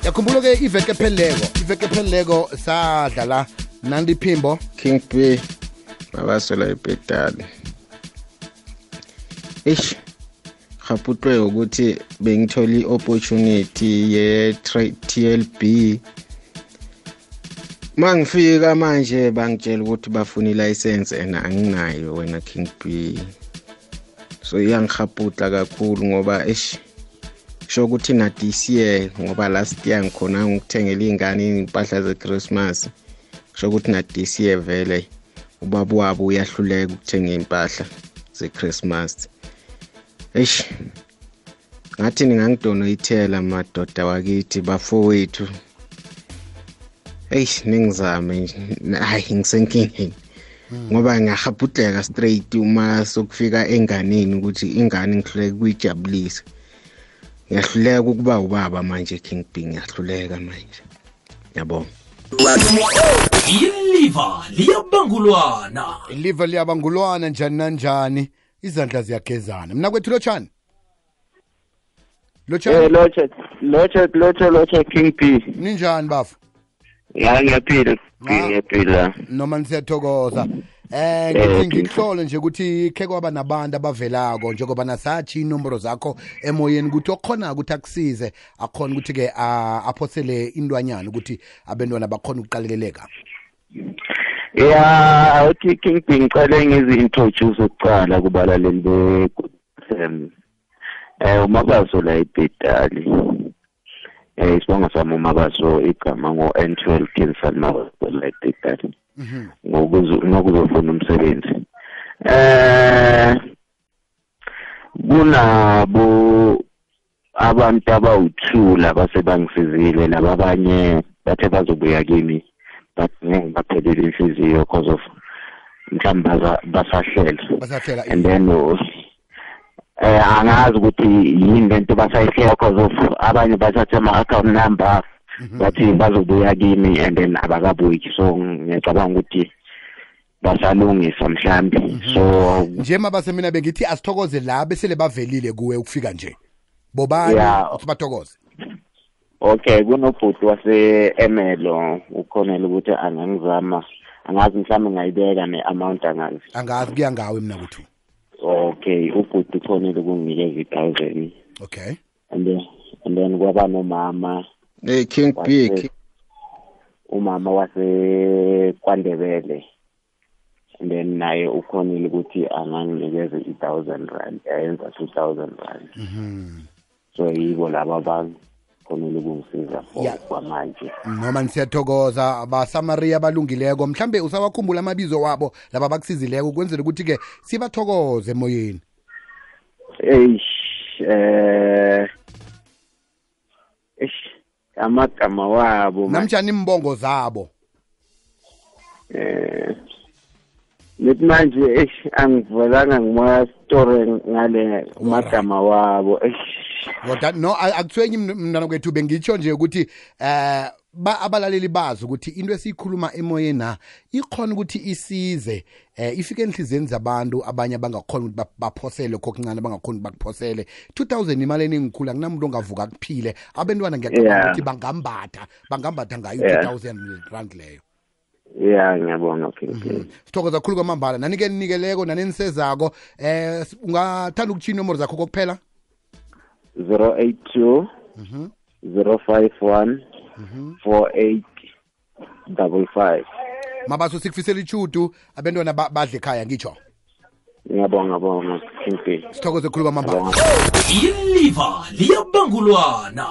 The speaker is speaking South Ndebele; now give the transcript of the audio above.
yakhumbula ke iveke epheleleko sadlala Nandi Phimbo King B babasola ipedali. Khaputwe ukuthi bengitholi opportunity ye TLB. Mangifika manje bangitshela ukuthi bafuna ilicense and anginayo wena King B. So iyangikhaputla kakhulu ngoba sho ukuthi na this year ngoba last year ngikhona ngikuthengela ingane impahla ze Christmas. Sho ukuthi na this year vele ubaba wabo uyahluleka ukuthenga impahla ze Christmas. Ngathi ningangidonate madoda wakithi bafowethu. Ningizame hayi ngisenkingeni. Ngoba ngiyahaputleka straight uma sokufika enganeni ukuthi ingane ngihluleka kuyijabulisa. Ngiyahluleka ukuba ubaba manje King B ngiyahluleka manje. Yabonga. Iliva liyabangulwana njani nanjani izandla ziyagezana mina kwethu Lotshani Lotsha King B ninjani bafu ya ngiyaphila noma nisiyathokoza ngikuhlole nje ukuthi khe kwaba nabantu abavelako njengoba nasathi inombolo zakho emoyeni ukuthi okhona ukuthi akusize akhona ukuthi ke aphosele indwanyana ukuthi abantwana bakhona ukuqalekeleka. Ya uthi King B ngicela ngizi-introduce ukuqala kubalaleli be-FM. Umabaso la ipedali. Isibongo sami umabaso igama ngo-N12 Kinsan Mabaso la ipedali. Ngokuzofuna umsebenzi. Kunabo abantu abawuthula basebangisizile laba abanye bathe bazobuya kimi but ngiphelele inhliziyo because of mhlawumbe basahlela and then angazi ukuthi yini lento basayihlela because of abanye bathatha ama-account number bathi bazobuya kimi and then abakabuyi so ngiyacabanga ukuthi basalungisa mhlambi so nje mabase mina bengithi asithokoze la besele bavelile kuwe ukufika nje bobani sibathokoze. Okay kunobhuti wase-Emelo ukhonela ukuthi angangizama angazi mhlawumbe ngayibeka ne-amount angazi kuya ngawe mina kuthu. Okay ubhuti ukhonela ukunginikeza 1,000. Okay and then kwaba nomama King B umama wase KwaNdebele and then naye ukhonile ukuthi anganginikeze 1,000 rand ayenza 2,000 rand. So yibo laba abantu khonile ukungisiza kwamanje noma nisiyathokoza abasamaria abalungileko mhlambe usawakhumbula amabizo wabo laba bakusizileko ukwenzela ukuthi ke sibathokoze emoyeni. Amagama wabo namjani imbongo zabo Lethi manje angivelanga ngima story ngale umagama wabo no akuthwenyi mntana kwethu bengitsho nje ukuthi abalaleli bazi ukuthi into esiyikhuluma emoyeni na ikhona ukuthi isize ifike enhliziyeni zabantu abanye abangakhona ukuthi baphosele kokuncane abangakhona bakuphosele 2,000 imali eningikhulu akunamuntu ongavuka kuphile abantwana ngiyacabanga ukuthi bangambatha ngayo 2,000 rand leyo. Yeah ngiyabona okay. Sithokoza kakhulu kwamambala nanike nikeleko nanenisezako ungathanda ukuchina inombolo zakho kokuphela 082 051 4855. Mabaso sikufisela ichudu abantwana badle ekhaya ngitsho. Ngiyabonga King B. Sithokoze kakhulu kwamambala. Iliva liyabangulwana.